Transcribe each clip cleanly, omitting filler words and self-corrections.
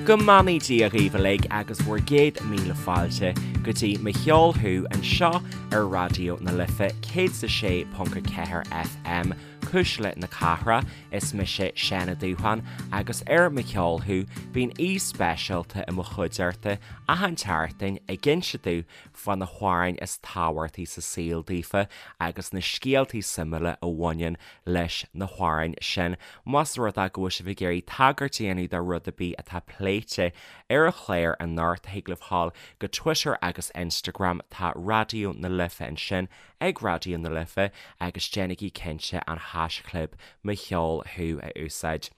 Go mbeannaí Dia dhaoibh uilig agus bhur gcéad míle fáilte go dtí Mo Cheol Thú anseo ar Raidió na Life 106.4 FM, Cuisle na Cathrach. Is mise Seán Ó Dúsháin agus ar Mo Cheol Thú bíonn aoi speisialta i mo chuideachta achan tseachtain ag inse domh fá na hamhráin is tábhachtaí sa saol daofa agus na scéaltaí suimiúla a bhaineann leis na hamhráin sin. Más rud é go bhfuil sibh ag iarraidh tagairt a dhéanamh do rud ar bith atá pléite ar an chlár anocht, thig libh dhul go Twitter agus Instagram, tá Raidió na Life ansin ag Raidió na Life agus déanaigí cinnte an haischlib Mo Cheol Thú a úsáid.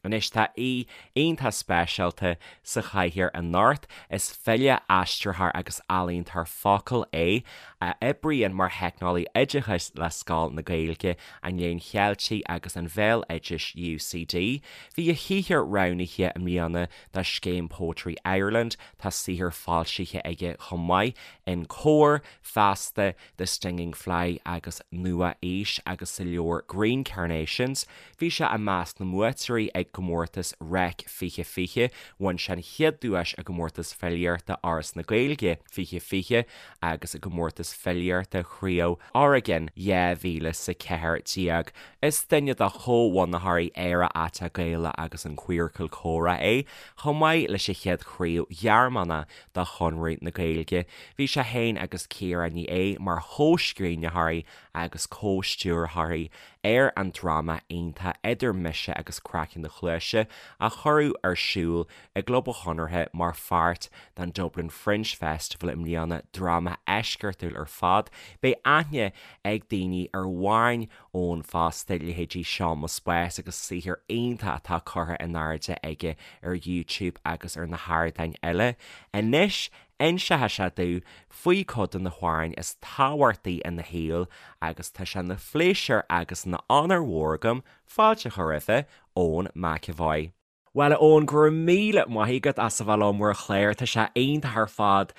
Anois tá aoi iontach speisialta sa chathaoir anocht. Is file, aistritheoir agus ealaíontóir focal é, a oibríonn mar theicneolaí oideachais le Scoil na Gaeilge, an Léinn Cheiltigh agus an Bhéaloidis, UCD. Bhí a shaothar roghnaithe i mbliana do scéim Poetry Ireland. Tá saothar foilsithe aige chomh maith in Comhar, Feasta, The Stinging Fly agus Nua Aois agus sa leabhar Green Carnations. Bhí sé i measc na mbuaiteoirí ag gcomórtas Reic 2020, bhain sé an chéad duais i gcomórtas filíochta Fhoras na Gaeilge 2020 agus i gcomórtas filíochta Chraobh Oregon 2014. Is duine de chomhbhunaitheoirí Éire Aiteach Gaelach agus an Queercal Comhrá é, chomh maith leis an chéad chraobh Ghearmánach de Chonradh na Gaeilge. Bhí sé féin agus Ciara Ní É mar chomhscríbhneoirí agus comhstiúrthóirí ar an dráma iontach Idir Mise agus Craiceann do Chluaise a cuireadh ar siúl i gClub an Chonartha mar pháirt den Dublin Fringe Festival i mbliana, dráma eisceachtúil ar fad. Beidh aithne ag daoine ar amhráin Eoin fosta, leithéidí Seo Mo Spás agus saothar iontach atá curtha in airde aige ar YouTube agus ar na hardáin eile. Anois, inseoidh sé domh faoi cuid de na hamhráin is tábhachtaí ina shaol agus tá sé ina phléisiúr agus ina onóir mhór agam fáilte a chur roimhe, Eoin McEvoy. Bhuel a Eoin, go raibh míle maith agat as a bheith liom ar an chlár, tá sé iontach ar fad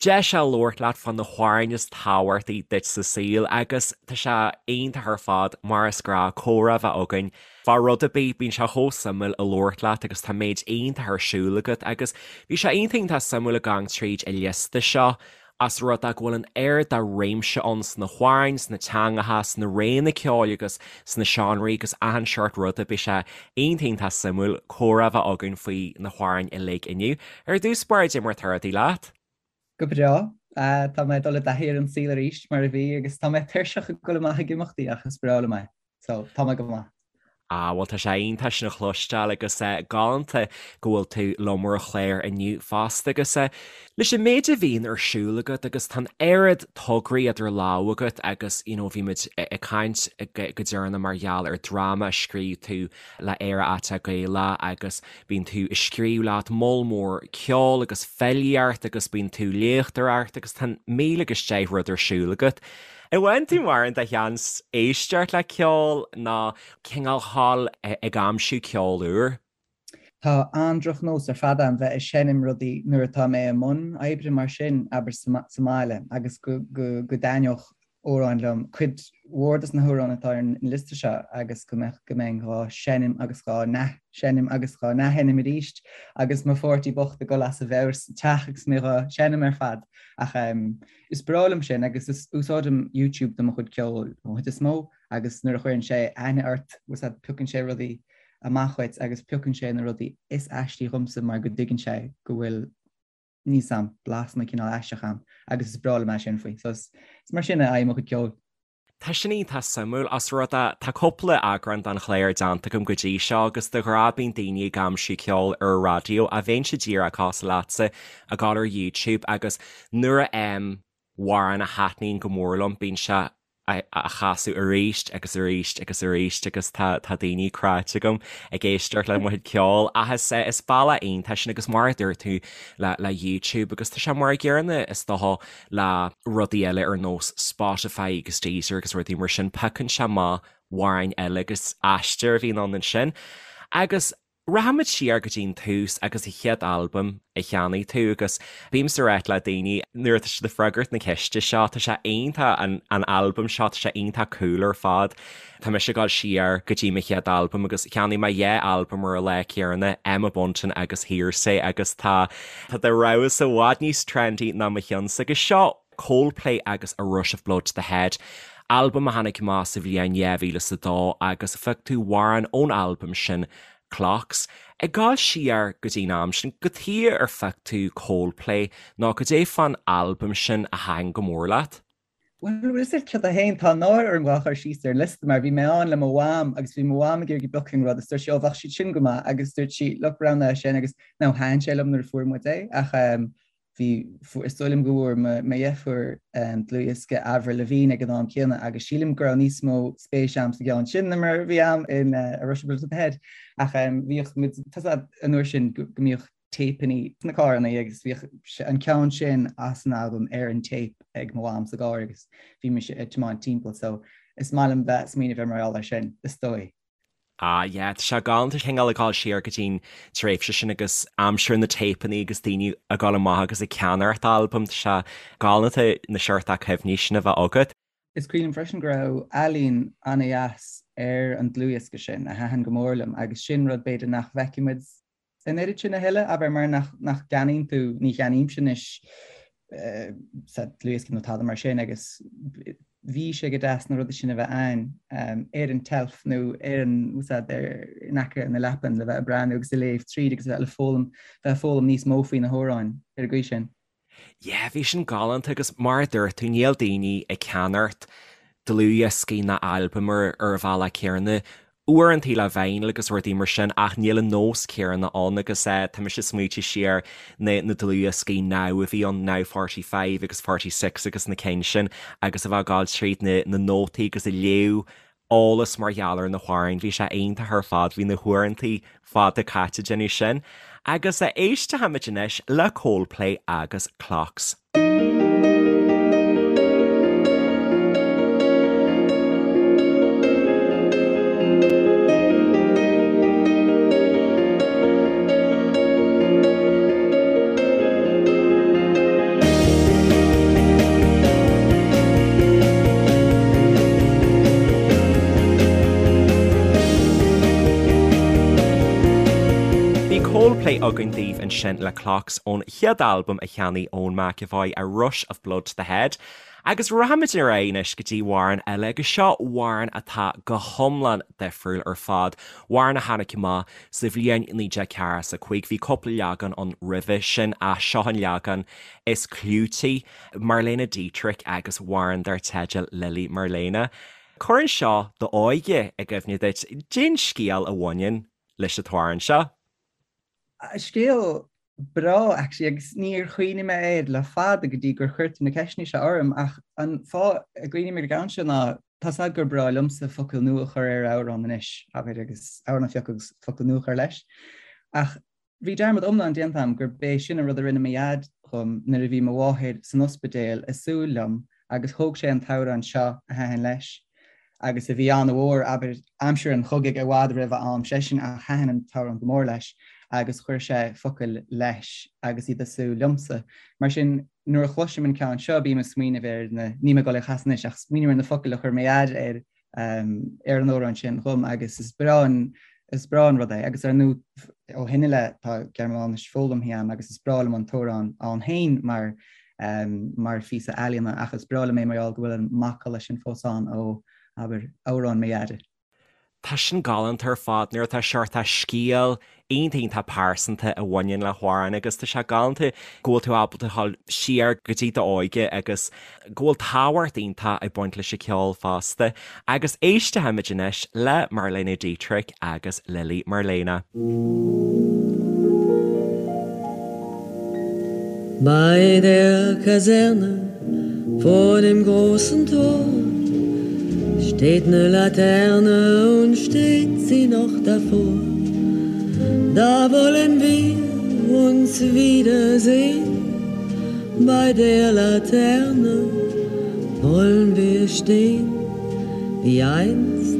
deis a labhairt leat fá na hamhráin is tábhachtaí duit sa saol agus tá sé iontach ar fad mar is gnáth comhrá a bheith againn fá rud ar bith, bíonn sé chomh suimiúil a labhairt leat agus tá méid iontach ar siúl agat agus bhí sé iontach iontach suimiúil ag gabháil tríd an liosta seo as rud é go bhfuil an oiread de réimse ann sna hamhráin, sna teangacha, sna réanna ceoil agus sna seánraí agus achan seort ruda, beidh sé iontach iontach suimiúil comhrá a bheith againn faoi na hamhráin uilig inniu. Ar dtús báire, cad é mar atá rudaí leat? Go breá. Tá mé ag dul i dtaithí ar an saol arís, mar a bhí, agus tá mé tuirseach ag dul amach ag imeachtaí ach is breá liom é. So, tá mé go maith. Ah, bhuel tá sé iontach sin a chloisteáil agus galánta go bhfuil tú liom ar an chlár inniu fosta agus leis an méid a bhíonn ar siúl agat agus tá an oiread tograí idir lámha agat agus you know bhí muid ag caint go deireanach mar gheall ar dráma a scríobh tú le Éire Aiteach Gaelach agus bíonn tú ag scríobh leat moll mór ceoil agus filíocht agus bíonn tú ag léachtóireacht agus tá 1010 rud ar siúl agat. An bhfaigheann tú mórán de sheans éisteacht le ceol nó cineál dhul ag aimsiú ceol úr? Tá an-drochnós ar fad a'm bheith ag seinm rudaí nuair atá mé i mbun oibre mar sin, abair sa mbaile, agus go dtaitneodh amhráin liom, cuid mhór dos na hamhráin atá ar an liosta seo agus go mbeadh, go mbeinn dhá seinm agus dhá n-athsheinm agus dhá n-athsheinm arís agus mo pháirtí bocht ag dul as a mheabhair sa teach agus mé dhá seinm ar fad. Ach Is breá liom sin agus is úsáidim YouTube do mo chuid ceoil an chuid is mó agus nuair a chuireann sé aithne ort, bhfuil 's a'd, piocann sé rudaí amach dhuit agus piocann sé na rudaí is aistí dhomsa mar go dtuigeann sé go bhfuil níl 's a'm, blasanna cineál aisteach a'm agus is breá liom é sin faoi. So is mar sin a fhaighim mo chuid ceoil. Tá sin iontach suimiúil, as rud é, tá cúpla eagrán den chlár déanta agam go dtí seo agus de ghnáth bíonn daoine ag aimsiú ceol ar an raidió ach bheinnse díreach cosúil leatsa ag dul ar YouTube agus nuair a fhaighim amhrán a thaitníonn go mór liom bíonn sé á chasadh arís agus arís agus arís agus tá tá daoine cráite agam ag éisteacht le mo chuid ceoil ach is is bealach iontach sin agus mar a dúirt tú le le YouTube agus tá sé mar a gcéanna is dócha le rudaí eile ar nós Spotify agus Deezer agus rudaí mar sin, piocann sé amach amhráin eile agus aistear a bhíonn ann ansin. Agus Rachaimid siar go dtí'n tús agus an chéad albam a cheannaigh tú agus bímse ag ráit le daoine nuair atá siad ag freagairt na ceiste seo, tá sé iontach an an albam seo, tá sé iontach cool ar fad. Tá mise ag dul siar go dtí mo chéad albam agus cheannaigh mé dhá albam ar an lá céanna, Emma Bunton agus Hear'Say agus tá tá do rogha-sa i bhfad níos trendy ná mo cheannsa agus seo Coldplay agus A Rush of Blood to the Head, albam a tháinig amach sa bhliain 2002 agus phioc tú amhrán ón albam sin, Clocks. Ag gabháil siar go dtí'n am sin, cad chuige ar phioc tú Coldplay nó cad é fán albam sin a thaitin go mór leat? Bhuel, bhfuil a fhios agat céard é féin, tá náire orm dhá chur síos ar an liosta mar bhí mé ann le mo mham agus bhí mo mham ag iarraidh piocadh an rud agus dúirt sí, ó bheadh siad sin go maith agus dúirt sí, look, roghnaigh é sin agus now thaitin sé liom nuair a fuair muid é ach Bhí, is dóigh liom go bhfuair mo dheirfiúr dlúthdhiosca Avril Lavigne ag an am céanna agus sílim go raibh níos mó spéis a'm sa gceann sin ná mar a bhí a'm in A Rush of Blood to the Head. Ach bhíodh muid, tá a fhios a'd an uair sin go mbíodh téipeanna sna carranna agus bhíodh an ceann sin as an albam ar an téip ag mo mham sa gcarr agus bhí mise ag tiomáint timpeall so is maith liom bheith ag smaoineamh ar mar gheall air sin, is dóigh. Ah yeah, tá sé galánta cineál ag dul siar go dtí'n tréimhse sin agus aimsir na téipeanna agus daoine ag dul amach agus ag ceannacht albam, tá sé galánta na seort cuimhní sin a bheith agat. Is cuimhin liom freisin go raibh ealaín an-dheas ar an dlúthdhiosca sin a thaitin go mór liom agus sin rud b'fhéidir nach bhfeicfidh muid an oiread sin a thuilleadh, abair, mar nach gceannaíonn tú, ní cheannaímse anois sa dlúthdhiosca nó tada mar sin agus bhí sé go deas na rudaí sin a bheith ann ar an tseilf nó ar an úsáid ar in aice na leapan le bheith ag breathnú agus ag léamh tríd agus a bheith le foghlaim, bheith ag foghlaim níos mó faoi na hamhráin ar an gcaoi sin. Yeah, bhí sin galánta agus mar a dúirt tú, níl daoine ag ceannacht dlúthdhioscaí ná albaim ar ar an bhealach céanna. Uaireantaí le vinyl agus rudaí mar sin ach níl an nós céanna ann agus eh tá mise ag smaoitiú siar na na dlúthdhioscaí Now a bhí ann, Now 45 agus 46 agus na cinn sin agus a bheith ag gabháil tríd na na nótaí agus ag léamh eolas mar gheall ar na hamhráin. Bhí sé iontach ar fad, bhí na huaireantaí fada caite ag déanamh sin. Agus éistfimid anois le Coldplay agus Clocks. Bhí Coldplay againn daoibh ansin le Clocks ón chéad albam a cheannaigh Eoin McEvoy, A Rush of Blood to the Head. Agus rachaimid ar aghaidh anois go dtí amhrán eile agus seo amhrán atá go hiomlán difriúil ar fad, amhrán a tháinig amach sa bhliain 1945, bhí cúpla leagan ann roimhe sin ach seo an leagan is clúití, Marlene Dietrich agus amhrán dar teideal Lili Marlene. Cuireann seo d'óige i gcuimhne duit, cén scéal a bhaineann leis an t-amhrán seo. Scéal breá actually agus níor chuimhnigh mé air le fada go dtí gur chuir tú na ceisteanna seo orm ach an fáth a gcuimhním ar an gceann seo ná tá 's a'd gur breá liomsa focail nua a chur ar amhrán anois, abair, agus amhrán a phiocadh agus focail nua a chur leis. Ach bhí dearmad iomlán déanta a'm gurb é sin an rud a rinne mo dhaid dhom nuair a bhí mo mháthair san ospidéal ag súil liom agus thóg sé an t-amhrán seo a thaitin leis agus a bhí an-mhór, abair, aimsir an chogaidh i bhfad roimh a am seisean ach thaitin an t-amhrán go mór leis agus chuir sé focail leis agus iad ag súil liomsa. Mar sin, nuair a chloisim an ceann seo bím ag smaoineamh ar na, níl mé ag dul é a chasadh anois ach smaoiním ar na focail a chuir mo dhaid ar ar an amhrán sin dhom agus is breá an is breá an rud é agus ar ndóigh ó shin i leith tá Gearmáinis foghlamtha a'm agus is breá liom an t-amhrán ann féin mar mar phíosa ealaíona ach is breá liom é mar gheall go bhfuil an macalla sin fós ann ó, abair, amhrán mo dhaide. Tá sin galánta ar fad nuair atá seort scéal iontach iontach pearsanta a bhaineann le hamhrán agus tá sé galánta go bhfuil tú ábalta dhul siar go dtí d'óige agus go bhfuil tábhacht iontach ag baint leis an ceol fosta. Agus éistfimid anois le Marlene Dietrich agus Lili Marlene. Bei der Kaserne vor dem großen Tor steht 'ne Laterne und steht sie noch davor. Da wollen wir uns wiedersehen, bei der Laterne wollen wir stehen, wie einst.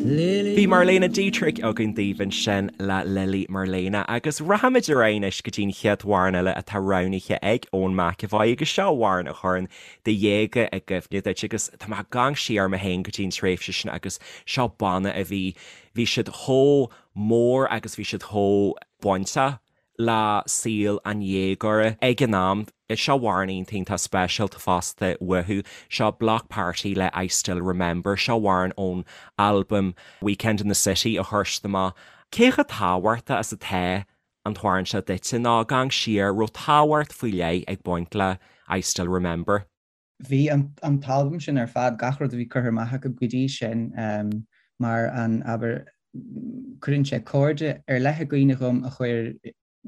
Bhí Marlene Dietrich againn daoibh ansin le Lili Marlene agus rachaimid ar aghaidh anois go dtí an chéad amhrán eile atá roghnaithe ag Eoin McEvoy agus seo amhrán a chuireann do dhéaga i gcuimhne duit agus tá mé ag gabháil siar mé féin go dtí an tréimhse sin agus seo banna a bhí, bhí siad chomh mór agus bhí siad chomh bainteach le saol an dhéagóra ag an am. Seo amhrán iontach iontach speisialta fosta uathu. Seo Bloc Party le I Still Remember. Seo amhrán ón albam Weekend in the City a chuir siad amach. Cé chomh tábhachtach is atá an t-amhrán seo duitse nó ag amharc siar, raibh tábhacht faoi leith ag baint le I Still Remember? Bhí an t-albam sin ar fad, gach rud a bhí curtha amach acu go dtí sin, mar an, abair, cuireann sé cairde ar leith i gcuimhne dhom a chuir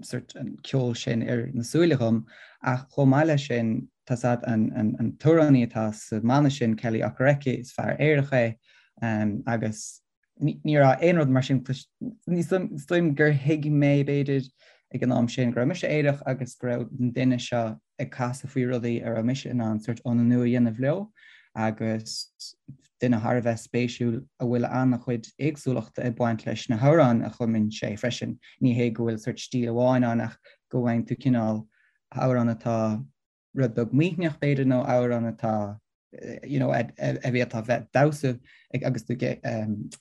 sort an ceol sin ar na súile dhom, ach chomh maith leis sin, tá's a'd, an t-amhránaí atá sa mbanna sin, Kele Okereke, is fear aerach é, agus ní raibh aon rud mar sin, is dóigh gur thuig mé, b'fhéidir, ag an am sin, go raibh mise aerach agus go raibh an duine seo ag casadh faoi rudaí a raibh mise in ann sort ionannú a dhéanamh leo agus duine thar a bheith spéisiúil a bhfuil an-chuid éagsúlachta ag baint leis na hamhráin a chumann sé freisin. Ní hé go bhfuil sort stíl amháin ann ach go bhfaigheann tú cineál amhrán atá rud beag maoithneach b'fhéidir nó amhrán atá you know, a bhféadfá bheith damhsa ag agus tú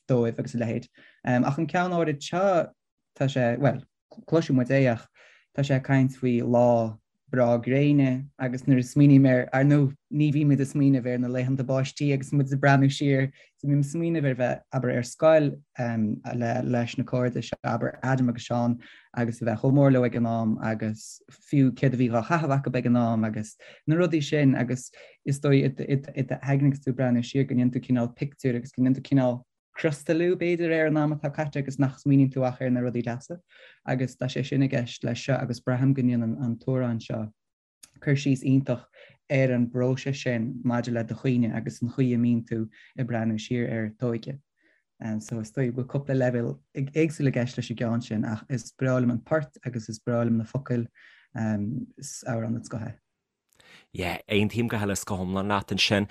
dóibh agus a leithéid. Ach an ceann áirid seo tá sé, bhuel, cloisfidh muid é ach tá sé ag caint faoi lá breá gréine agus nuair a smaoiním air, ar ndóigh ní bhímid ag smaoineamh ar na laethanta báistí agus muid ag breathnú siar, so bím ag smaoineamh ar bheith, abair, ar scoil le leis na cairde seo, abair, Adam agus Seán agus a bheith chomh mór leo ag an am agus fiú céard a bhí dhá chaitheamh acu ag an am agus na rudaí sin agus is dóigh i d'aigne agus tú ag breathnú siar go ndéanann tú cineál pictiúr agus go ndéanann tú cineál criostalú b'fhéidir ar an am atá caite agus nach smaoiníonn tú ach ar na rudaí deasa agus tá sé sin i gceist leis seo agus braithim go ndéanann an t-amhrán seo cur síos iontach ar an bpróiseas sin maidir le do chuimhne agus an chaoi a mbíonn tú ag breathnú siar ar t'óige. So is dóigh go bhfuil cúpla leibhéal éagsúil i gceist leis an gceann sin ach is breá liom an port agus is breá liom na focail, is amhrán den scoth é. Yeah, aontaím go huile is go hiomlán leat ansin.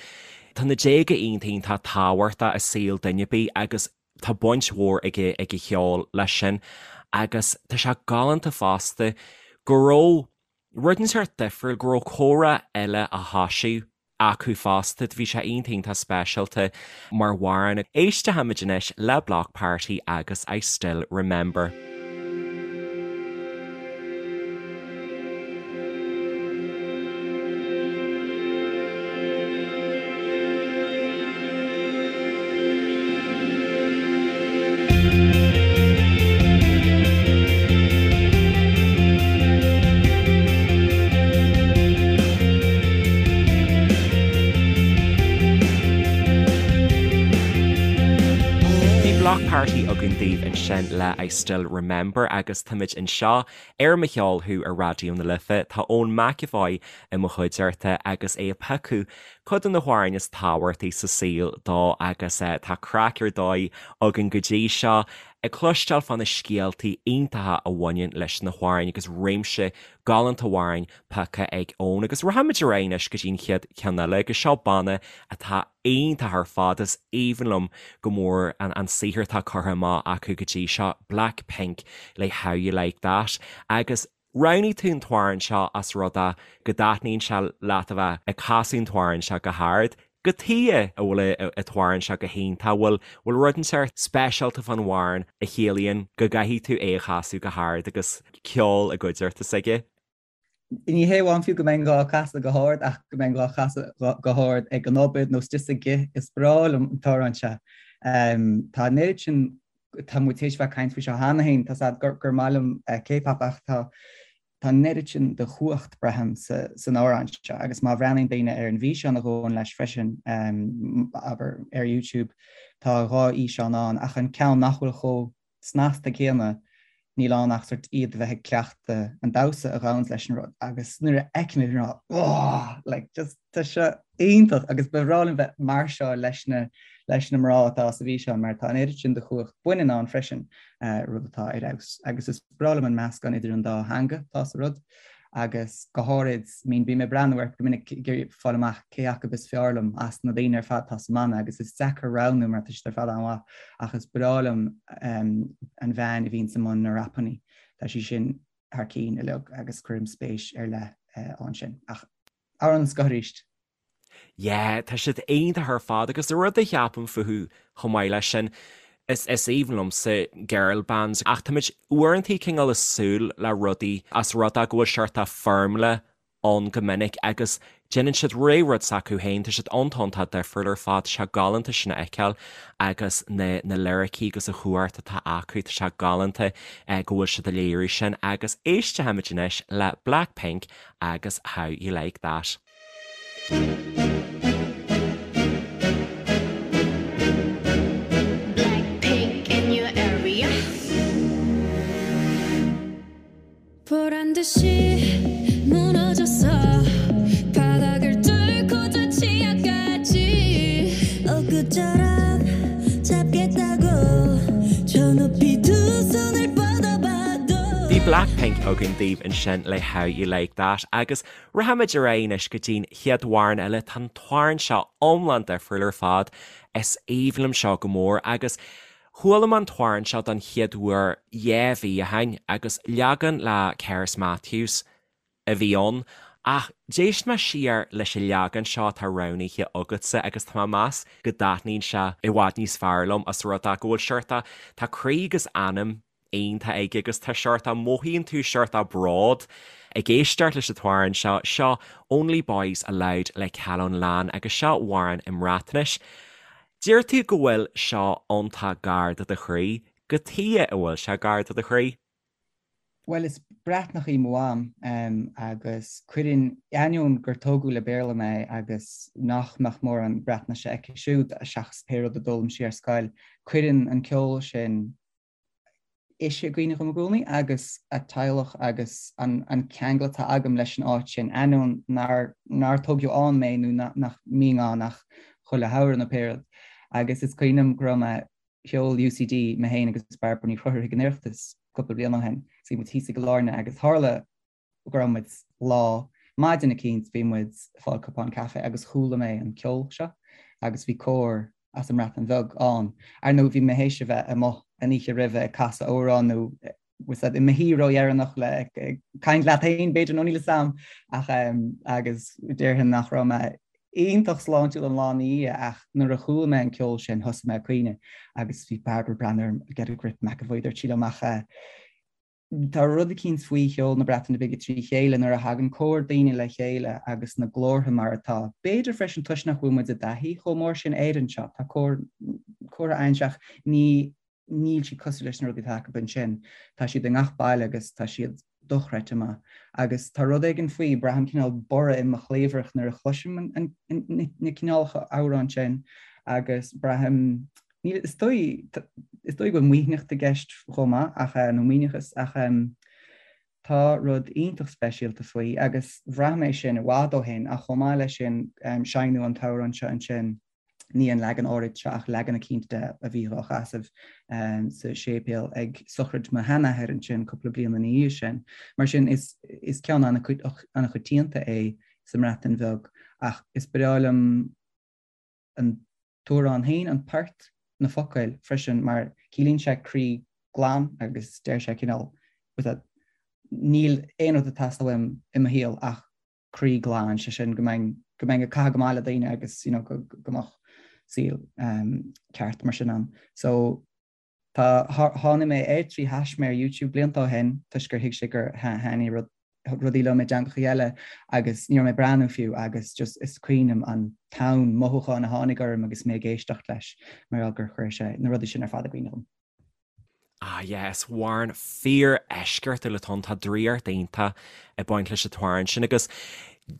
Tá na déaga iontach iontach tábhachtach i saol duine ar bith agus tá baint mhór ag ag an cheol leis sin agus tá sé galánta fosta go raibh rud inteacht difriúil, go raibh comhrá eile á thoisiú acu fosta. Bhí sé iontach iontach speisialta mar amhrán. Éistfimid anois le Bloc Party agus I Still Remember. Bhí Bloc Party againn daoibh ansin le I Still Remember agus táimid anseo ar Mo Cheol Thú ar Raidió na Life. Tá Eoin McEvoy i mo chuideachta agus é ag piocadh cuid de na hamhráin is tábhachtaí sa saol dó agus tá craic ar dóigh againn go dtí seo ag cloisteáil fá na scéaltaí iontacha a bhaineann leis na hamhráin agus réimse galánta amhrán pioctha ag Eoin. Agus rachaimid ar aghaidh anois go dtí an chéad cheann eile agus seo banna atá iontach ar fad, is aoibhinn liom go mór an saothar atá curtha amach acu go dtí seo, Blackpink le How You Like That agus Roghnaigh tú an t-amhrán seo as rud é go dtaitníonn sé leat a bheith ag casadh an t-amhrán seo go hard. Cad chuige a bhfuil an t-amhrán seo go hiontach, bhfuil bhfuil rud inteacht speisialta fán amhrán a chiallaíonn go gcaithfidh tú é a chasadh go hard agus ceol i gcuideachta s'aige? Ní hé amháin fiú go mbeinn dhá chasadh go hard ach go mbeinn dhá chasadh go hard ag an obair nó istigh sa gcith, is breá liom an t-amhrán seo. Tá an oiread sin tá muid théis bheith ag caint faoi seo cheana féin, tá's a'd gur maith liom K-pop ach tá tá an oiread sin de chumhacht, braithim, san amhrán seo agus má bhreathnaíonn daoine ar an bhfíseán a ghabhann leis freisin, abair, ar YouTube, tá 2 fhíseán ann ach an ceann nach bhfuil chomh snasta céanna, níl ann ach sort iad a bheith ag cleachtadh an damhsa a ghabhanns leis an rud agus nuair a fheicim é bím ag rá oh! like just tá seo iontach agus ba bhreá liom bheith mar seo leis na leis na mná atá sa bhfíseán mar tá an oiread sin de chumhacht baineann ann freisin, rud atá ar fheabhas agus is breá liom an meascán idir an dá theanga atá sa rud. Agus go háirid, I mean, bím ag breathnú orthu go minic ag iarraidh fáil amach cé acu is fearr liom as na daoine ar fad atá sa mbanna agus is deacair roghnú mar tá siad ar fad an-mhaith ach is breá liom an bhean a bhíonns i mbun na rapannaí. Tá sí sin thar cinn uilig agus cuirim spéis ar leith ann sin. Ach amhrán den scoth arís. Yeah, tá siad iontach ar fad agus an rud a cheapaim fúthu chomh maith leis sin, is is aoibhinn liomsa girl bands ach táimid uaireanta cineál ag súil le rudaí as rud é go bhfuil seort of foirmle ann go minic agus déanann siad ré rud s'acu féin, tá siad iontach iontach difriúil ar fad, tá sé galánta sin a fheiceáil agus na na liricí agus an chumhacht atá acu, tá sé galánta go bhfuil siad ag léiriú sin agus éistfimid anois le Blackpink agus How You Like That. Blackpink in your area. 보란 듯이 무너졌어 바닥을 뚫고 저 지하까지 엊그처럼 잡겠다고 저 높이 두 손을 뻗어봐도 Bhí Blackpink againn daoibh ansin le How You Like That agus Rachaimid ar aghaidh anois go dtí'n chéad amhrán eile. Tá an t-amhrán seo iomlán difriúil ar fad. Is aoibhinn liom seo go mór agus chuala mé an t-amhrán seo don chéad uair dhá mhí ó shin agus leagan le Cerys Matthews a bhí ann. Ach d'éist mé siar leis an leagan seo atá roghnaithe agatsa agus tá mé ag meas go dtaitníonn sé i bhfad níos fearr liom as rud é go bhfuil seort a, tá croí agus anam iontach aige agus tá seort a mothaíonn tú seort a bród ag éisteacht leis an t-amhrán seo. Seo Only Boys Aloud le Calon Lân agus seo amhrán i mBreatnais. Deir tú go bhfuil seo iontach gar do do chroí. Cad chuige a bhfuil sé gar do do chroí? Bhuel, is Breatnach í mo mham agus cuireann, ainneoin gur tógadh le Béarla mé agus nach mbeadh mórán Breatnaise aici siúd seachas pé rud a d'fhoghlaim sí ar scoil, cuireann an ceol sin ise i gcuimhne dhom i gcónaí agus a teaghlach agus an ceangal atá agam leis an áit sin, ainneoin nár nár tógadh ann mé nó nach mbínn ann ach chuile shamhradh nó pé rud. Agus is cuimhin liom go raibh mé, sheol UCD mé féin agus Bairbre Ní Chonchúir chuig an Oireachtas cúpla bliain ó shin, so bhí muid thíos i gCill Airne agus tharla go raibh muid lá, maidin eicínt bhí muid ag fáil cupán caife agus chuala mé an ceol seo agus bhí cór as an mBreatain Bheag ann. Ar ndóigh bhí mé théis a bheith amuigh an oíche roimhe ag casadh amhrán nó bhfuil fhios a'd i mo shuí ródheireanach le ag caint leat féin b'fhéidir nó níl fhios a'm ach agus déarfainn nach raibh mé iontach sláintiúil an lá ina dhiaidh ach nuair a chuala mé an ceol sin thosaigh mé ag caoineadh agus bhí Bairbre ag breathnú orm get a grip McEvoy dúirt sí liom ach Tá rud eicínt faoi cheol na Breataine Bige trí chéile nuair a thagann cór daoine le chéile agus na glórtha mar atá. B'fhéidir freisin toisc nach bhfuil muid i dtaithí chomh mór sin air anseo. Tá cór, córtha ann ach ní, níl siad cosúil leis na rudaí atá acu ansin. Tá siad i ngach baile agus tá siad dochreidte maith. Agus tá rud éigin faoi, braithim cineál borradh i mo chliabhrach nuair a chloisim an, an, na cineálacha amhrán sin agus braithim, Níl, is dóigh, is dóigh go bhfuil maoithneacht i gceist chomh maith ach, nó maoithneachas, ach tá rud iontach speisialta faoi agus bhraith mé sin i bhfad ó shin ach chomh maith leis sin seinneadh an t-amhrán seo ansin, ní an leagan áirid seo ach leagan eicínt de a bhí á chasadh sa séipéal ag sochraid mo sheanathair ansin cúpla bliain ina dhiaidh sin. Mar sin is, is ceann an-choitianta é sa mBreatain Bheag ach is breá liom an t-amhrán féin, an port, na focail freisin mar ciallaíonn sé croí glan agus deir sé cineál níl aon rud ag teastáil uaim i mo shaol ach croí glan, sé sin go mbeinn go mbeinn ag caitheamh go maith le daoine agus you know go go mbeadh saol um, ceart mar sin ann. So Tá, tháinig mé air trí thaisme ar YouTube blianta ó shin toisc gur thuig sé gur thaitnigh rud, rudaí liom i dteangacha eile agus ní raibh mé ag breathnú fiú agus just is cuimhin liom an tonn mothúchán a tháinig orm agus mé ag éisteacht leis mar gheall gur chuir sé na rudaí sin ar fad i gcuimhne dhom. Ah yeah, is amhrán fíor-eisceachtúil atá ann, tá draíocht iontach ag baint leis an t-amhrán sin agus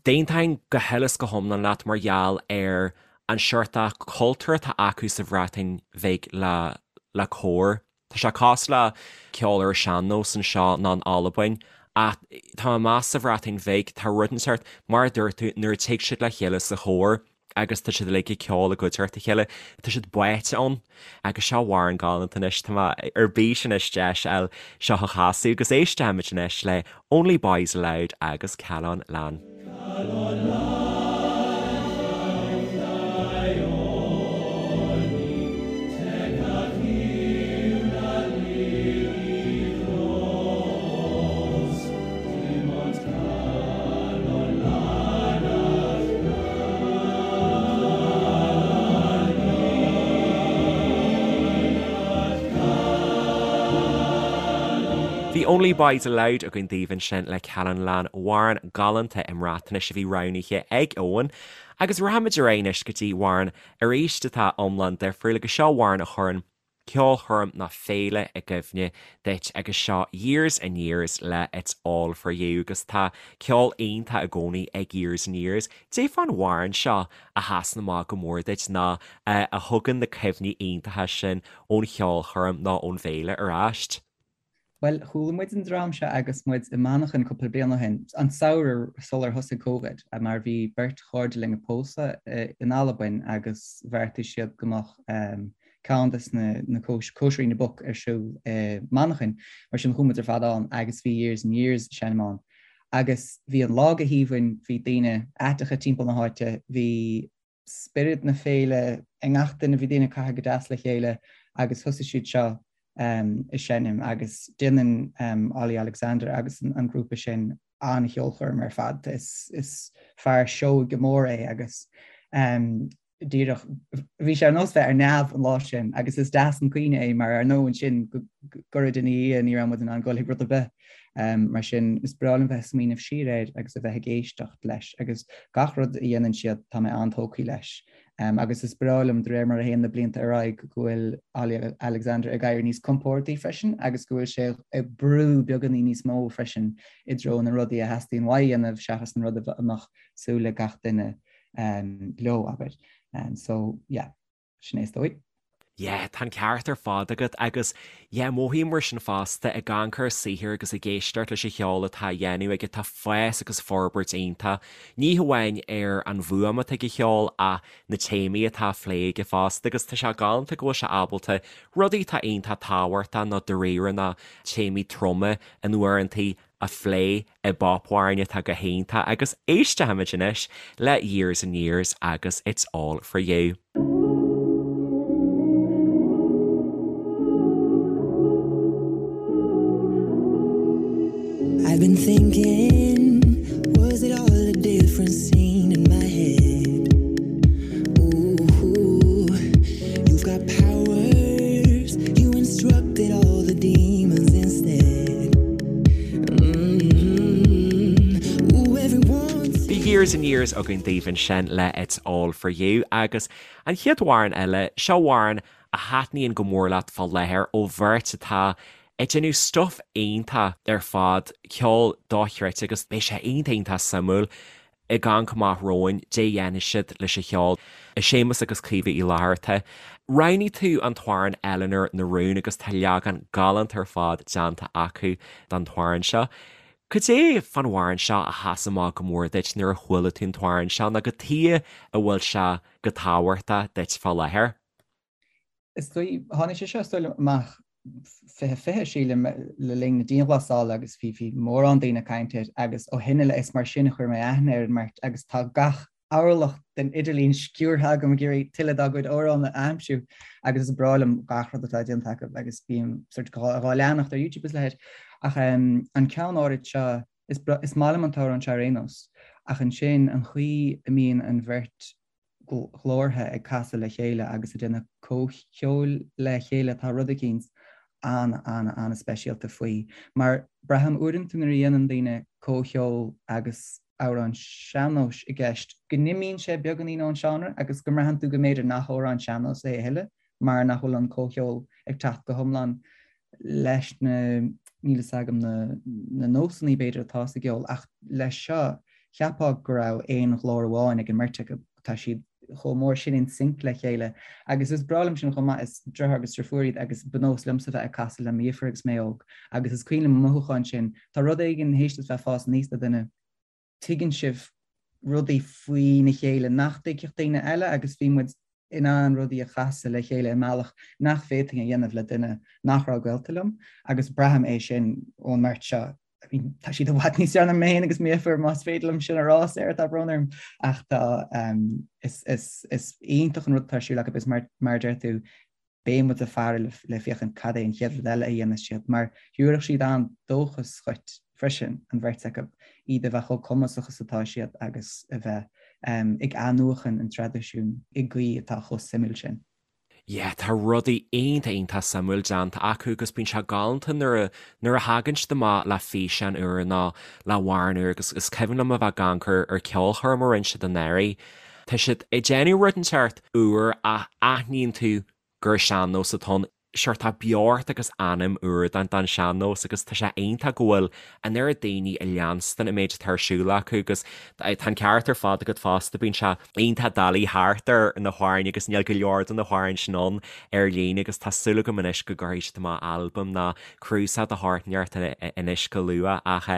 d'aontóinn go huile is go hiomlán leat mar gheall ar an seort cultúr atá acu sa Bhreatain Bhig le le cór. Tá sé cosúil le ceol ar an sean-nós anseo nó in Albain ach tá mé ag meas sa Bhreatain Bhig tá rud inteacht mar a dúirt tú nuair a tig siad le chéile sa chór. Agus tá siad uilig ag ceol i gcuideachta a chéile. Tá siad báite ann. Agus seo amhrán galánta anois, tá mé ar bís anois deis a fháil seo a chasadh agus éistfimid anois le Only Boys Aloud agus Calon Lân. Calon Lân Bhí Only Boys Aloud againn daoibh ansin le Calon Lân, amhrán galánta i mBreatnais a bhí roghnaithe ag Eoin. Agus rachaimid ar aghaidh anois go dtí amhrán arís atá iomlán difriúil agus seo amhrán a chuireann ceolchoirm nó féile i gcuimhne duit agus seo Years and Years le It's All For You agus tá ceol iontach i gcónaí ag Years and Years. Cad é fán amhrán seo a sheasann amach go mór duit nó a thugann na cuimhní iontacha sin ón cheolchoirm nó ón bhféile ar ais? Bhuel, chuala muid an dream seo agus muid i Manchain cúpla bliain ó shin, an samhradh sular thosaigh Covid, mar bhí beirt chairde linn ag pósadh in Albain agus bheartaigh siad go mbeadh ceann des na cóisirí na boc ar siúl i Manchain. Mar sin chuaigh muid ar fad ann agus bhí Years and Years ag seinm ann. Agus bhí an lá go haoibhinn, bhí daoine aiteacha timpeall na háite, bhí spiorad na féile i ngach duine, bhí daoine ag caitheamh go deas le chéile agus thosaigh siad seo ag seinm agus déanann Olly Alexander agus an grúpa sin an-cheolchoirm ar fad. Is fear seoigh go mór é agus díreach bhí sé ar nós bheith ar neamh an lá sin agus is deas an cuimhne é mar ar ndóigh ansin go gairid ina dhiaidh ní raibh muid in ann dul chuig rud ar bith. Mar sin, is breá liom bheith ag smaoineamh siar air agus a bheith ag éisteacht leis agus gach rud a dhéanann siad, tá mé an-tógtha leis. Agus is breá liom, de réir mar a théann na blianta ar aghaidh, go bhfuil Olly Alexander ag éirí níos compórdaí freisin agus go bhfuil sé ag brú beagáinín níos mó freisin i dtreo na rudaí a theastaíonn uaidh a dhéanamh seachas an rud a mbeadh súil ag gach duine leo, abair. So, yeah. Sin é is dóigh. Yeah, tá an ceart ar fad agat agus yeah, mothaím mar sin fosta, ag amharc ar a saothar agus ag éisteacht leis an cheol atá á dhéanamh aige, tá fás agus forbairt iontach, ní hamháin ar an bhfuaim atá ag a cheol ach na téamaí atá á phlé aige fosta agus tá sé galánta go bhfuil sé ábalta rudaí atá iontach tábhachtach nó dáiríre nó téamaí troma in uaireantaí a phlé i bpopamhráin atá go hiontach agus éistfimid anois le Years and Years agus It's All For You. I've been thinking, was it all a different scene in my head? Ooh, you've got powers, you instructed all the demons instead. Bhí Years and Years againn daoibh ansin le It's All For You agus an chéad amhrán eile, seo amhrán a thaitníonn go mór leat fá láthair ó bheirt atá ag déanamh stuif iontach ar fad, ceol dochreidte agus beidh sé iontach iontach suimiúil ag amharc amach romhainn, cad é a dhéanfaidh siad leis an cheol. Séamus agus Caoimhe Uí Fhlatharta. Roghnaigh tú an t-amhrán Eleanor na Rún agus tá leagan galánta ar fad déanta acu den t-amhrán seo. Cad é fán amhrán seo a sheas amach go mór duit nuair a chuala tú an t-amhrán seo nó cad chuige a bhfuil sé go tábhachtach duit fá láthair? Is dóigh, tháinig sé seo is dóigh liom amach 2020 sílim le linn na dianghlasála agus bhí bhí mórán daoine ag caint air agus ó shin i leith is mar sin a chuir mé aithne ar an mbeirt agus tá gach orlach den idirlíon sciúrtha agam ag iarraidh tuilleadh dá gcuid amhrán a aimsiú agus is breá liom gach rud atá déanta acu agus bím sort dhá leanacht ar YouTube is a leithéid. Ach an ceann áirid seo is is maith liom an t-amhrán seo ar aon nós ach ansin an chaoi a mbíonn an bheirt ghlórtha ag casadh le chéile agus ag déanamh comhcheoil le chéile, tá rud eicínt an-an-an-speisialta faoi. Mar braithim uaireanta nuair a dhéanann daoine comhcheol agus amhrán sean-nóis i gceist, go n-imíonn sé beagáinín ón seánra agus go mbraitheann tú go mb'fhéidir nach amhrán sean-nóis é a thuilleadh mar nach bhfuil an comhcheol ag teacht go hiomlán leis na, níl fhios agam, na, na nósanna b'fhéidir atá sa gceol ach leis seo cheapfá go raibh aon ghlór amháin ag an mbeirt acu, tá siad chomh mór sin in sync le chéile agus is breá liom sin chomh maith, is deartháir agus deirfiúr iad agus ba nós liomsa bheith ag casadh le mo dheirfiúr agus mé óg agus is cuimhin liom an mothúchán sin, tá rud éigin théis duit bheith ag fás aníos le duine, tuigeann sibh. rudaí faoina chéile nach dtuigfeadh daoine eile agus bhí muid in ann rudaí a chasadh le chéile i mbealach nach bhféadfainn a dhéanamh le duine nach raibh gaolta liom agus braithim é sin ón mbeirt seo. I mean, tá siad i bhfad níos fearr ná mé féin agus m'dheirfiúr más féidir liom sin a rá, Sarah, tá brón orm ach tá um, is, is, is iontach an rud atá ar siúl acu is mar, mar a deir tú beidh muid ag faire le féachaint cad é an chéad rud eile a dhéanfas siad, mar thabharfadh siad an-dóchas dhuit freisin, an bheirt acu, iad a bheith chomh cumasach is atá siad agus a bheith ag athnuachan an traidisiúin i gcaoi atá chomh suimiúil sin. Yeah, tá rudaí iontach iontach suimiúil déanta acu agus bíonn sé galánta nuair a nuair a thagann siad amach le físeán úr nó le hamhrán úr agus is cuimhin liom a bheith ag amharc ar ar ceolchoirm a rinne siad anuraidh. Tá siad ag déanamh rud inteacht úr ach aithníonn tú gur sean-nós atá ann. Sure tá beocht agus anam úr don don sean-nós agus tá sé iontach go bhfuil an oiread daoine ag leanstan an méid atá ar siúl acu agus tá an ceart ar fad agat fosta, bíonn sé iontach doiligh theacht ar na hamhráin agus níl go leor de na hamhráin sin ann ar líne agus tá súil agam anois go gcuirfidh siad amach albam nó cnuasach de shórt inteacht anois go luath ach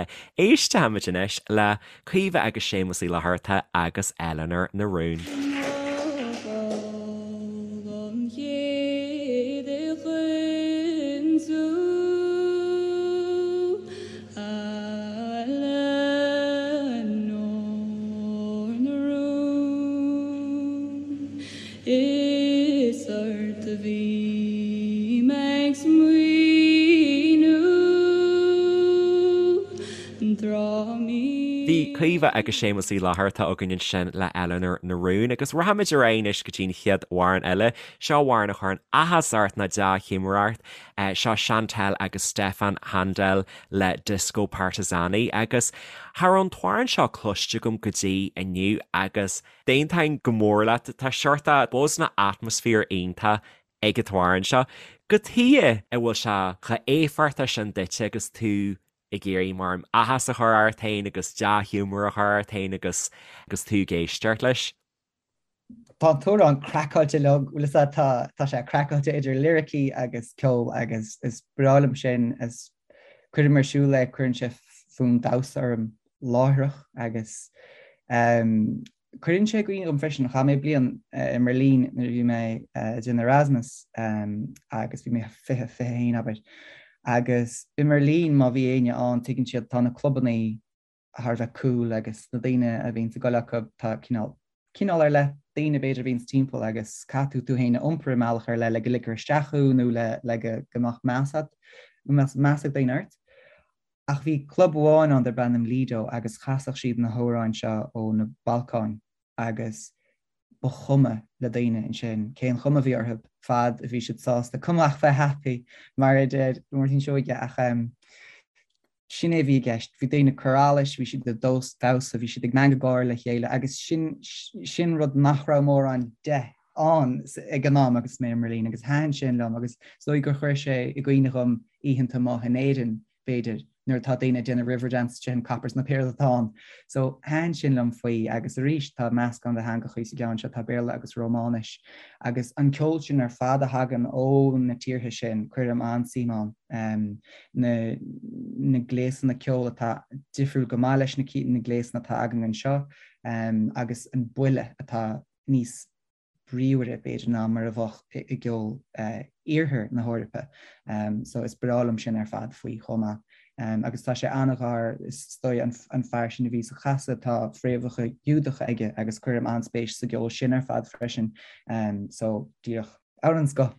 éistfimid anois le Caoimhe agus Séamus Uí Fhlatharta agus Eleanor na Rún. Is ort a bhí mé ag smaoineamh. Bhí Caoimhe agus Séamus Uí Fhlatharta againn ansin le Eleanor na Rún agus rachaimid ar aghaidh anois go dtí an chéad amhrán eile. Seo amhrán a chuireann áthas ort nó dea-ghiúmar ort. Seo Chantal agus Stefan Handel le Disko Partizani agus cha raibh an t-amhrán seo cloiste agam go dtí inniu agus d'aontóinn go mór leat, tá seort buzz nó atmaisféar iontach ag an t-amhrán seo. Cad chuige a bhfuil sé chomh éifeachtach sin duitse agus tú ag iarraidh mar áthas a chur ort féin agus dea-ghiúmar a chur ort féin agus agus tú ag éisteacht leis. Tá an t-amhrán craiceáilte liom, bhfuil fhios a'd, tá tá sé craiceáilte idir liricí agus ceol agus is breá liom sin, is cuirim ar siúl é, cuireann sé fonn damhsa orm láithreach agus Cuireann sé i gcuimhne dhom freisin, chaith mé bliain i mBeirlín nuair a bhí mé ag déanamh Erasmus agus bhí mé 20, 21 abair. Agus i mBeirlín má bhí éinne ann tuigeann siad tá na clubannaí thar a bheith cool agus na daoine a bhíonns ag goil acu tá cineál, cineál ar leith daoine b'fhéidir a bhíonns timpeall agus caithfidh tú tú féin a iompar i mbealach ar leith le go ligfear isteach thú nó le le go go mbeadh meas a'd, go mbeadh meas ag daoine ort. Ach bhí club amháin ann darb ainm Lido agus chasadh siad na hamhráin seo ó na Balcáin agus ba chuma le daoine ansin cén chuma a bhí orthu fad a bhí siad sásta, cuma ach bheith happy mar a deir Máirtín Seoige ach sin é a bhí i gceist. Bhí daoine ag cur allais, bhí siad ag damhsa, bhí siad ag meangadh gáire le chéile agus sin sin rud nach raibh mórán de ann ag an am agus mé i mBerlin agus thaitin sin liom agus is dóigh gur chuir sé i gcuimhne dhom oícheanta amuigh in Éirinn, b'fhéidir, nuair atá daoine ag déanamh Riverdance tríd an coppers nó pé rud atá ann. So thaitin sin liom faoi agus arís tá meascán de theangachaí sa gceann seo, tá Béarla agus Rómáinis agus an ceol sin ar fad a thagann ó na tíortha sin, cuirim an-suim ann. Na na gléasanna ceoil atá difriúil go maith leis na na gléasanna atá againn anseo agus an buille atá níos bríomhaire, b'fhéidir, ná mar a bheadh i gceol iarthar na hEorpa. So is breá liom sin ar fad faoi chomh maith. Agus tá sé an-ghar, is dóigh, an fear sin a bhí á chasadh, tá fréamhacha Giúdacha aige agus cuirim an-spéis sa gceol sin ar fad freisin. So díreach amhrán den scoth.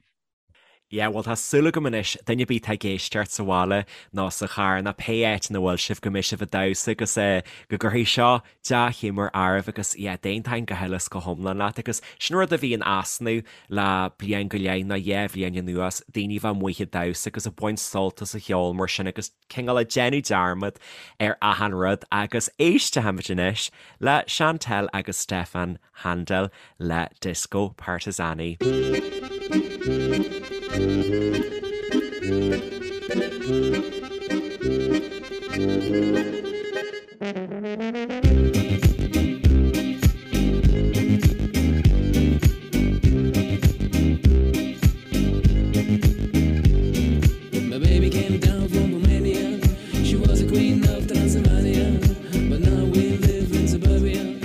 Yeah, bhuel tá súil agam anois, duine ar bith atá ag éisteacht sa bhaile nó sa charr nó pé áit ina bhfuil sibh go mbeidh sibh ag damhsa agus eh go gcuirfidh seo dea-ghiúmar oraibh agus yeah d'aontóinn go huile is go hiomlán leat agus sin rud a bhí in easnamh le bliain go leith nó dhá bhliain anuas, daoine a bheith amuigh ag damhsa agus ag baint sult as an cheol mar sin agus cineál ag déanamh dearmad ar achan rud agus éistfimid anois le Chantal agus Stefan Handel le Disko Partizani. My baby came down from Romania. She was a queen of Transylvania. But now we live in suburbia.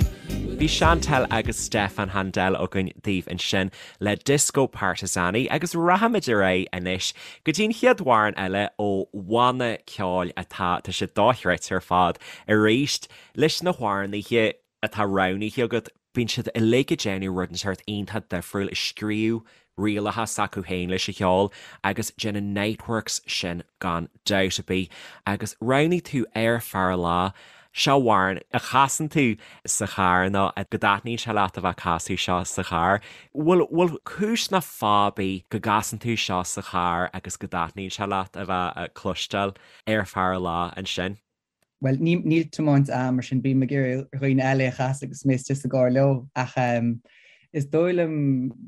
Chantelle agus Stefan Handel againn daoibh ansin le Disko Partizani agus rachaimid ar aghaidh anois go dtí an chéad amhrán eile ó bhanna ceoil atá, tá sé dochreidte ar fad arís leis na hamhránaithe atá roghnaithe agat, bíonn siad uilig ag déanamh rud inteacht iontach difriúil, ag scríobh rialacha s'acu féin leis an cheol agus déanann Niteworks sin gan dabht ar bith. Agus roghnaigh tú Ar Feadh a Lá, seo amhrán a chasann tú sa charr nó go dtaitníonn sé leat a bheith ag casadh seo sa charr. Bhfuil, bhfuil cúis ná fáth ar bith go gcasann tú seo sa charr agus go dtaitníonn sé leat a bheith ag cloisteáil Ar Feadh a Lá ansin? Bhuel, níl tiomáint a'm, mar sin bím ag iarraidh ar dhaoine eile é a chasadh agus mé istigh sa gcarr leo. Ach is dóigh liom,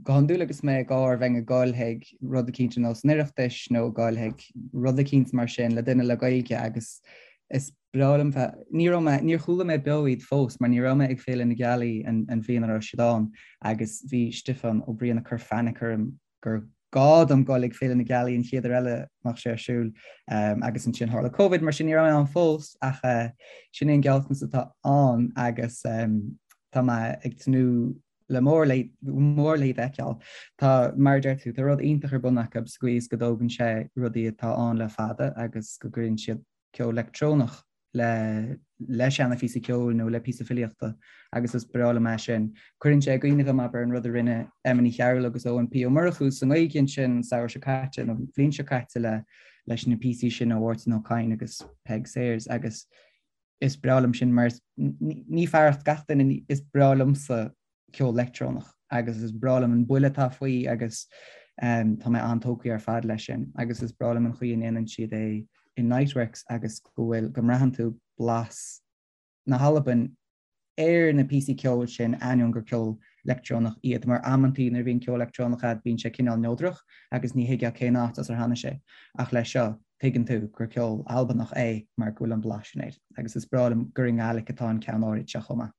go hiondúil agus mé i gcarr, bheinn ag goil chuig rud eicínt ar nós an Oireachtais nó ag goil chuig rud eicínt mar sin le duine le Gaeilge agus is breá liom bheith, ní raibh mé, níor chuala mé beo iad fós mar ní raibh mé ag Féile na Gealaí an bhliain a raibh siad ann agus bhí Stiofán Ó Briain ag cur fainic orm gur gá dom goil ag Féile na Gealaí an chéad uair eile a mbeadh sé ar siúl agus ansin tharla Covid mar sin ní raibh mé ann fós ach sin é an gealltanas atá ann agus tá mé ag tnúth le mór le mór le iad a fheiceáil. Tá, mar a deir tú, tá rud iontach ar bun acu sa gcaoi is go dtógann sé rudaí atá ann le fada agus go gcuireann siad ceol leictreonach le le seana-phíosa ceoil nó le píosa filíochta agus is breá liom é sin. Cuireann sé i gcuimhne dhom, abair, an rud a rinne Emma Ní Chearúil agus Eoin P. Ó Murchú sa nGaeilge ansin an samhradh seo caite nó an bhliain seo caite le leis na píosaí sin ó Mháirtín Ó Cadhain agus Peig Sayers agus is breá liom sin mar ní fearacht gach duine, is breá liomsa ceol leictreonach agus is breá liom an buille atá faoi agus tá mé an-tógtha ar fad leis sin agus is breá liom an chaoi a ndéanann siad é in Niteworks agus go bhfuil, go mbraitheann tú blas na hAlban ar na píosaí ceoil sin ainneoin gur ceol leictreonach iad mar amantaí nuair a bhíonn ceol leictreonach a'd bíonn sé cineál neodrach agus ní thuigfeá cén áit as ar tháinig sé ach leis seo tuigeann tú gur ceol Albanach é mar go bhfuil an blas sin air agus is breá liom gur i nGaelic atá an ceann áirid seo chomh maith.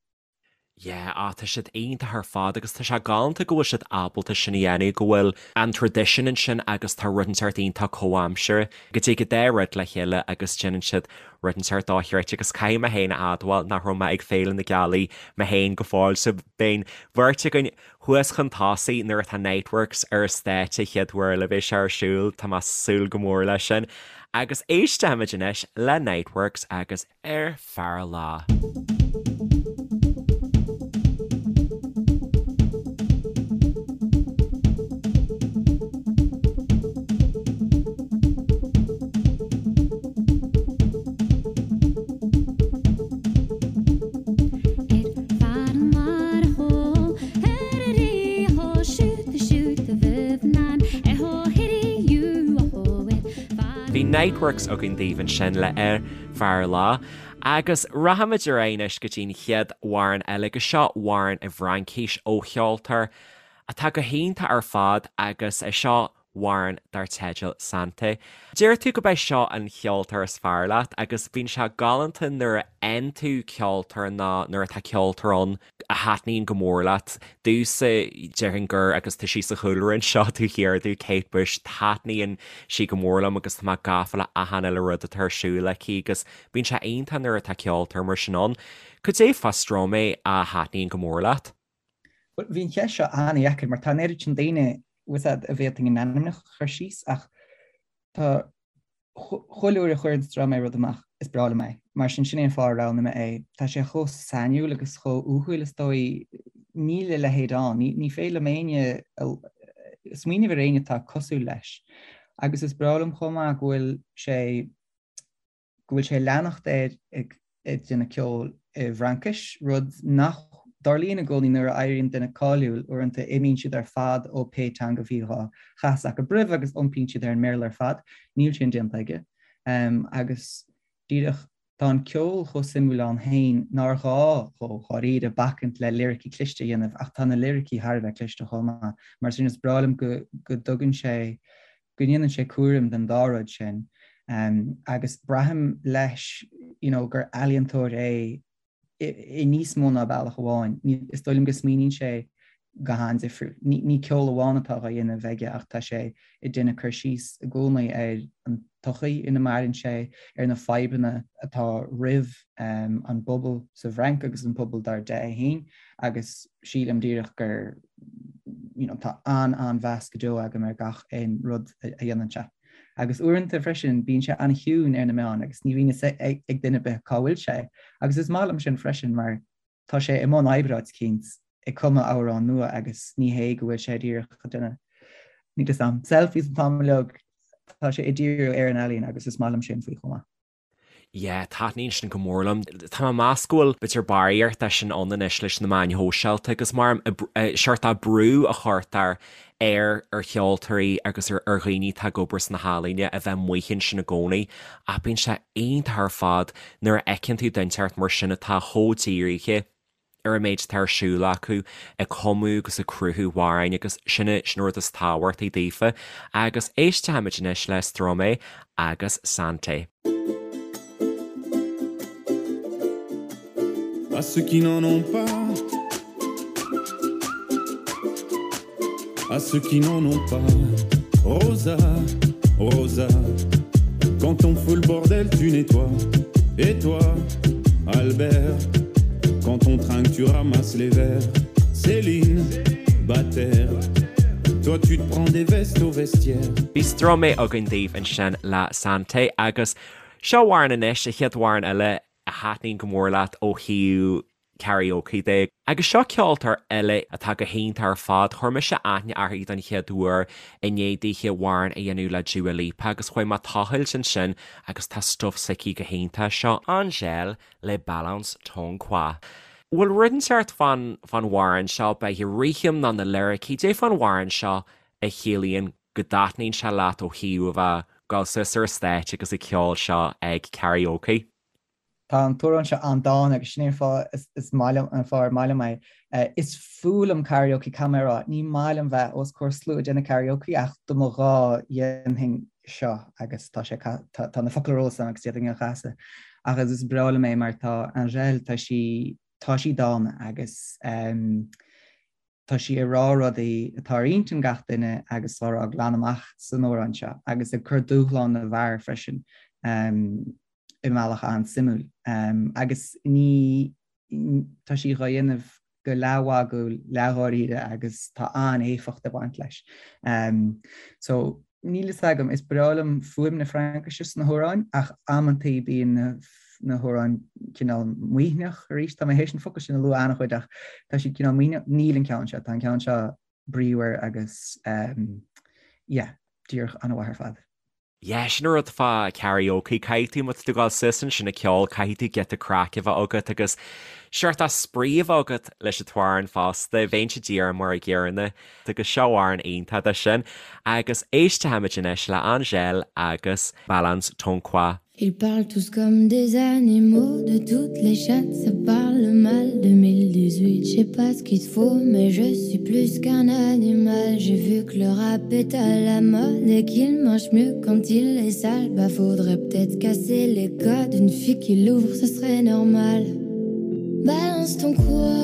Yeah, ah tá siad iontach ar fad agus tá sé galánta go bhfuil siad ábalta sin a dhéanamh, go bhfuil an traidisiún ansin agus tá rud inteacht iontach comhaimseartha, go dtig an dá rud le chéile agus déanann siad rud inteacht dochreidte agus caithfidh mé féin a admháil nach raibh mé ag Féile na Gealaí mé féin go fóill so beidh an bheirt againn thuas chun tosaigh nuair atá Niteworks ar an stáitse chéad uair eile a bheidh sé ar siúl, tá mé ag súil go mór leis sin. Agus éistfimid anois le Niteworks agus. Ar Feadh a Lá. Bhí Niteworks againn daoibh ansin le Ar Feadh a Lá. Agus rachaimid ar aghaidh anois go dtí an chéad amhrán eile, agus seo amhrán i bhFraincis ó cheoltóir atá go hiontach ar fad agus é seo amhrán dar teideal Santé. Deir tú go b'é seo an cheoltóir is fearr leat agus bíonn sé galánta nuair a fhaigheann tú ceoltóir nó nuair atá ceoltóir ann a thaitníonn go mór leat. Domhsa, déarfainn gur, agus tá sí sa chúlra anseo taobh thiar domh, Kate Bush, taitníonn sí go mór liom agus tá mé gafa le achan uile rud atá ar siúl aici agus bíonn sé iontach nuair atá ceoltóir mar sin ann. Cad é fá Stromae a thaitníonn go mór leat? Bhuel, bhí an cheist seo an-dheacair mar tá an oiread sin daoine, bhfuil a fhios a'd, a bhféadfainn a n-ainmneacha a chur síos ach tá Chuile uair a chuireann Stromae rud amach, is breá liom é. Mar sin, sin é an fáth a roghnaigh mé é. Tá sé chomh sainiúil agus chomh uathúil, is dóigh. Níl a leithéid ann. Ní féidir liom éinne, smaoineamh ar éinne atá cosúil leis. Agus is breá liom chomh maith go bhfuil sé, go bhfuil sé ag leanacht air ag ag déanamh ceoil i bhFraincis, rud nach dtarlaíonn i gcónaí nuair a éiríonn duine cáiliúil, uaireanta imíonn siad ar fad ó pé teanga a bhí á chasadh acu roimhe agus iompaíonn siad ar an mBéarla ar fad. Níl sin déanta aige. Agus díreach, tá an ceol chomh suimiúil ann féin nár ghá dhó, dháiríre, bacaint le liricí cliste a dhéanamh, ach tá na liricí thar a bheith cliste chomh maith. Mar sin, is breá liom go dtugann sé go ndéanann sé cúram den dá rud sin agus braithim leis you know gur ealaíontóir é i níos mó ná bealach amháin. Is dóigh liom go smaoiníonn sé go han-difriúil. Ní ceol amháin atá á dhéanamh aige ach tá sé ag déanamh cur síos i gcónaí ar an. tsochaí ina maireann sé, ar na fadhbanna atá roimh an bpobal sa bhFrainc agus an pobal dar de é féin agus sílim díreach gur you know tá an-an-mheas go deo agam ar gach aon rud a dhéanann sé. Agus uaireanta freisin bíonn sé an-chiúin ar na meáin agus ní bhíonn fhios ag duine ar bith cá bhfuil sé agus is maith liom sin freisin mar tá sé i mbun oibre áit eicínt ag cumadh amhrán nua agus ní hé go bhfuil sé díreach ag déanamh, níl fhios a'm, selfies an t-am uilig, tá sé ag díriú ar an ealaín agus is maith liom sin faoi chomh maith. Yeah, taitníonn sin go mór liom. Tá mé ag meas go bhfuil b'fhéidir barraíocht de sin ann anois leis na meáin shóisialta agus mar seort de brú a chuirtear ar ar cheoltóirí agus ar ar dhaoine atá ag obair sna healaíona a bheith amuigh ansin i gcónaí ach bíonn sé iontach ar fad nuair a fheiceann tú duine inteacht mar sin atá chomh dírithe ar an méid atá ar siúl acu ag cumadh agus ag cruthú amhráin agus sin é sin an rud is tábhachtaí daofa agus éistfimid anois le Stromae agus Santé. À ceux qui n'en ont pas À ceux qui n'en ont pas Rosa, Rosa Quand on fout le bordel tu nettoies Et toi, Albert Quand on trinque tu ramasses les verres Céline, Bataire Toi tu te prends des vestes au vestiaire. Bhí Stromae againn daoibh ansin le Santé agus seo amhrán anois, an chéad amhrán eile a thaitníonn go mór leat ó thaobh karaoke de. Agus seo ceoltóir eile atá go hiontach ar fad, chuir mise aithne uirthi don chéad uair i ndiaidh dithe amhrán a dhéanamh le Dua Lipa agus chuaigh mé tochailt ansin agus tá stuif s'aici go hiontach. Seo Angèle le Balance Ton Quoi. Bhfuil rud inteacht fán fán amhrán seo, beidh rithim nó na liricí, cad é fán amhrán seo a chiallaíonn go dtaitníonn sé leat ó thaobh a bheith ag gabháil suas ar an stáitse agus ag ceol seo ag karaoke? Tá an t-amhrán seo an-dána agus sin é an fáth is maith liom an fáth ar maith liom é. Is fuath liom karaoke, caithfidh mé a rá. Ní maith liom bheith os comhair slua ag déanamh karaoke ach dá mba ghá dhéanfainn seo agus tá sé tá na focail ar eolas agam agus d'fhéadfainn é a chasadh. Ach is breá liom é mar tá Angèle tá sí tá sí dána agus tá sí ag rá rudaí atá ar intinn gach duine agus á rá glan amach san amhrán seo agus ag cur dúshlán na bhfear freisin. i mbealach an-suimiúil. Agus ní, tá sí dhá dhéanamh go leathmhagúil, leathdháiríre agus tá an-éifeacht ag baint leis. So, níl fhios agam, is breá liom fuaim na Fraincise sna hamhráin ach amantaí bíonn na na hamhráin cineál maoithneach arís, tá mé théis an focal sin a lua an-chuid ach tá siad cineál maoithneach, níl an ceann seo, tá an ceann seo bríomhar agus yeah, díreach an-mhaith ar fad. Yeah, sin an rud fá karaoke, caithfidh tú, má tá tú ag gabháil suas ansin ag ceol, caithfidh tú giota craic a bheith agat agus seort de spraoi a bheith agat leis an t-amhrán fosta, bheinnse díreach mar a gcéanna agus seo amhrán iontach de sin. Agus éistfimid anois le Angèle agus Balance Ton Quoi. Ils parlent tous comme des animaux De toutes les chattes, ça parle mal 2018, je sais pas ce qu'il te faut Mais je suis plus qu'un animal J'ai vu que le rap est à la mode Et qu'il marche mieux quand il est sale Bah faudrait peut-être casser les codes Une fille qui l'ouvre, ce serait normal Balance ton quoi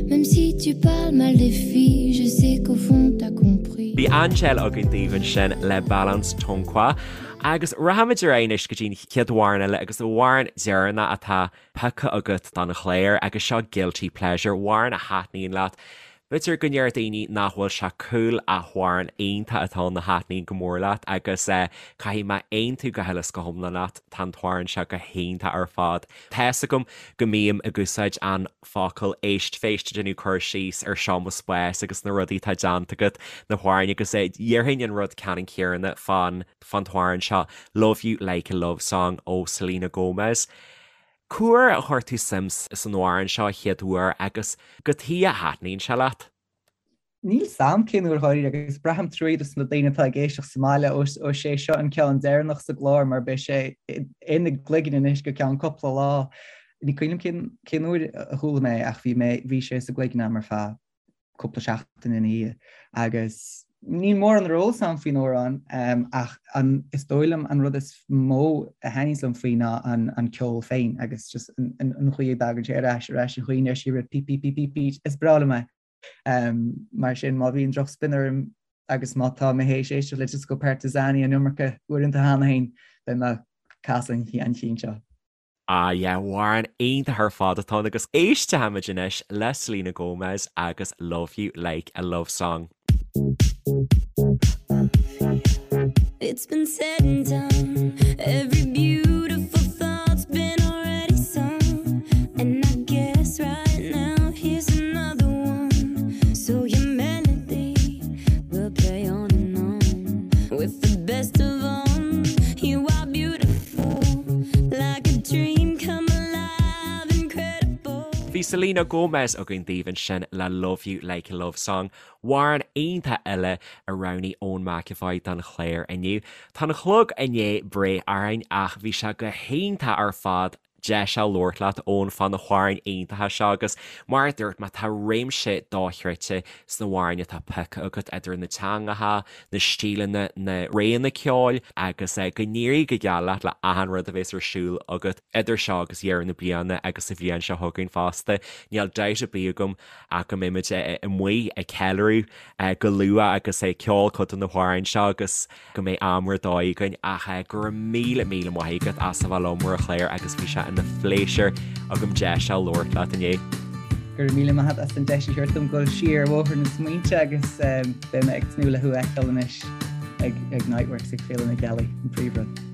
Même si tu parles mal des filles Je sais qu'au fond t'as compris Bhí Angèle againn daoibh ansin le Balance Ton Quoi agus rachaimid ar aghaidh anois go dtí an chéad amhrán eile agus an amhrán deireanach atá pioctha agat don chlár agus seo Guilty Pleasure, amhrán a thaitníonn leat. B'fhéidir go ndeir daoine nach bhfuil sé cool ach amhrán iontach atá ann a thaitníonn go mór leat agus caithfidh mé aontú go huile is go hiomlán leat, tá an t-amhrán seo go hiontach ar fad. Tá's agam go mbím ag úsáid an focal éistphéist ag déanamh cur síos ar seo mo spás agus na rudaí atá déanta agat, na hamhráin agus déarfainn an rud ceannann céanna fán fán t-amhrán seo Love You Like a Love Song ó Selena Gomez. Cá huair a chuir tú suim san amhrán seo a chéad uair agus cad chuige a thaitníonn sé leat? Níl 's a'm cén uair dháiríre agus braithim truaí dos na daoine atá ag éisteacht sa mbaile ós é seo an ceann deireanach sa gclár mar beidh sé ina gcloigeann anois go ceann cúpla lá. Ní cuimhin liom cén uair a chuala mé é ach bhí mé, bhí sé sa gcloigeann a'm ar feadh cúpla seachtain ina dhiaidh agus níl mórán ar eolas a'm faoin amhrán ach an is dóigh liom an rud is mó a thaitníos liom faoi ná an an ceol féin agus just an an chaoi a dtagann sé ar ais ar ais an chaoi a ndeir sí repeat peat peat peat peat is breá liom é. Mar sin má bhíonn drochspion orm. agus má tá mé théis éisteacht le Disko Partizani an iomarca uaireanta cheana féin, beidh mé ag casadh an chinn seo. Ah yeah, amhrán iontach ar fad atá ann agus éistfimid anois le Selena Gomez agus Love You Like a Love Song. It's been said and done Every beautiful thought's been already sung And I guess right now here's another one So your melody will play on and on With the best of 'em You are beautiful Like a dream come alive Incredible Bhí Selena Gomez againn daoibh ansin le Love You Like a Love Song Amhrán iontach eile a roghnaigh Eoin McEvoy don chlár inniu. Tá an clog i ndiaidh breith orainn ach bhí sé go hiontach ar fad deis a labhairt leat Eoin fá na hamhráin iontacha seo agus mar a dúirt mé tá réimse dochreidte sna hamhráin atá pioctha agat idir na teangacha, na stíleanna, na réanna ceoil agus go n-éirí go geal leat le achan rud a bhéas ar siúl agat idir seo agus deireadh na bliana agus sa bhliain seo chugainn fosta. Níl dabht ar bith agam ach go mbeimid amuigh ag ceiliúradh go luath agus ag ceol cuid de na hamhráin seo agus go mbeidh am ar dóigh againn ach go raibh míle míle maith agat as a bheith liom ar an chlár agus bhí sé ina phléisiúr agam deis a labhairt leat inniu. Go raibh míle maith agat as an deis a thabhairt dom dul siar ar bhóthar na smaointe agus beidh mé ag tnúth le thú a fheiceáil anois ag Niteworks ag Féile na Gealaí, an príomhrud.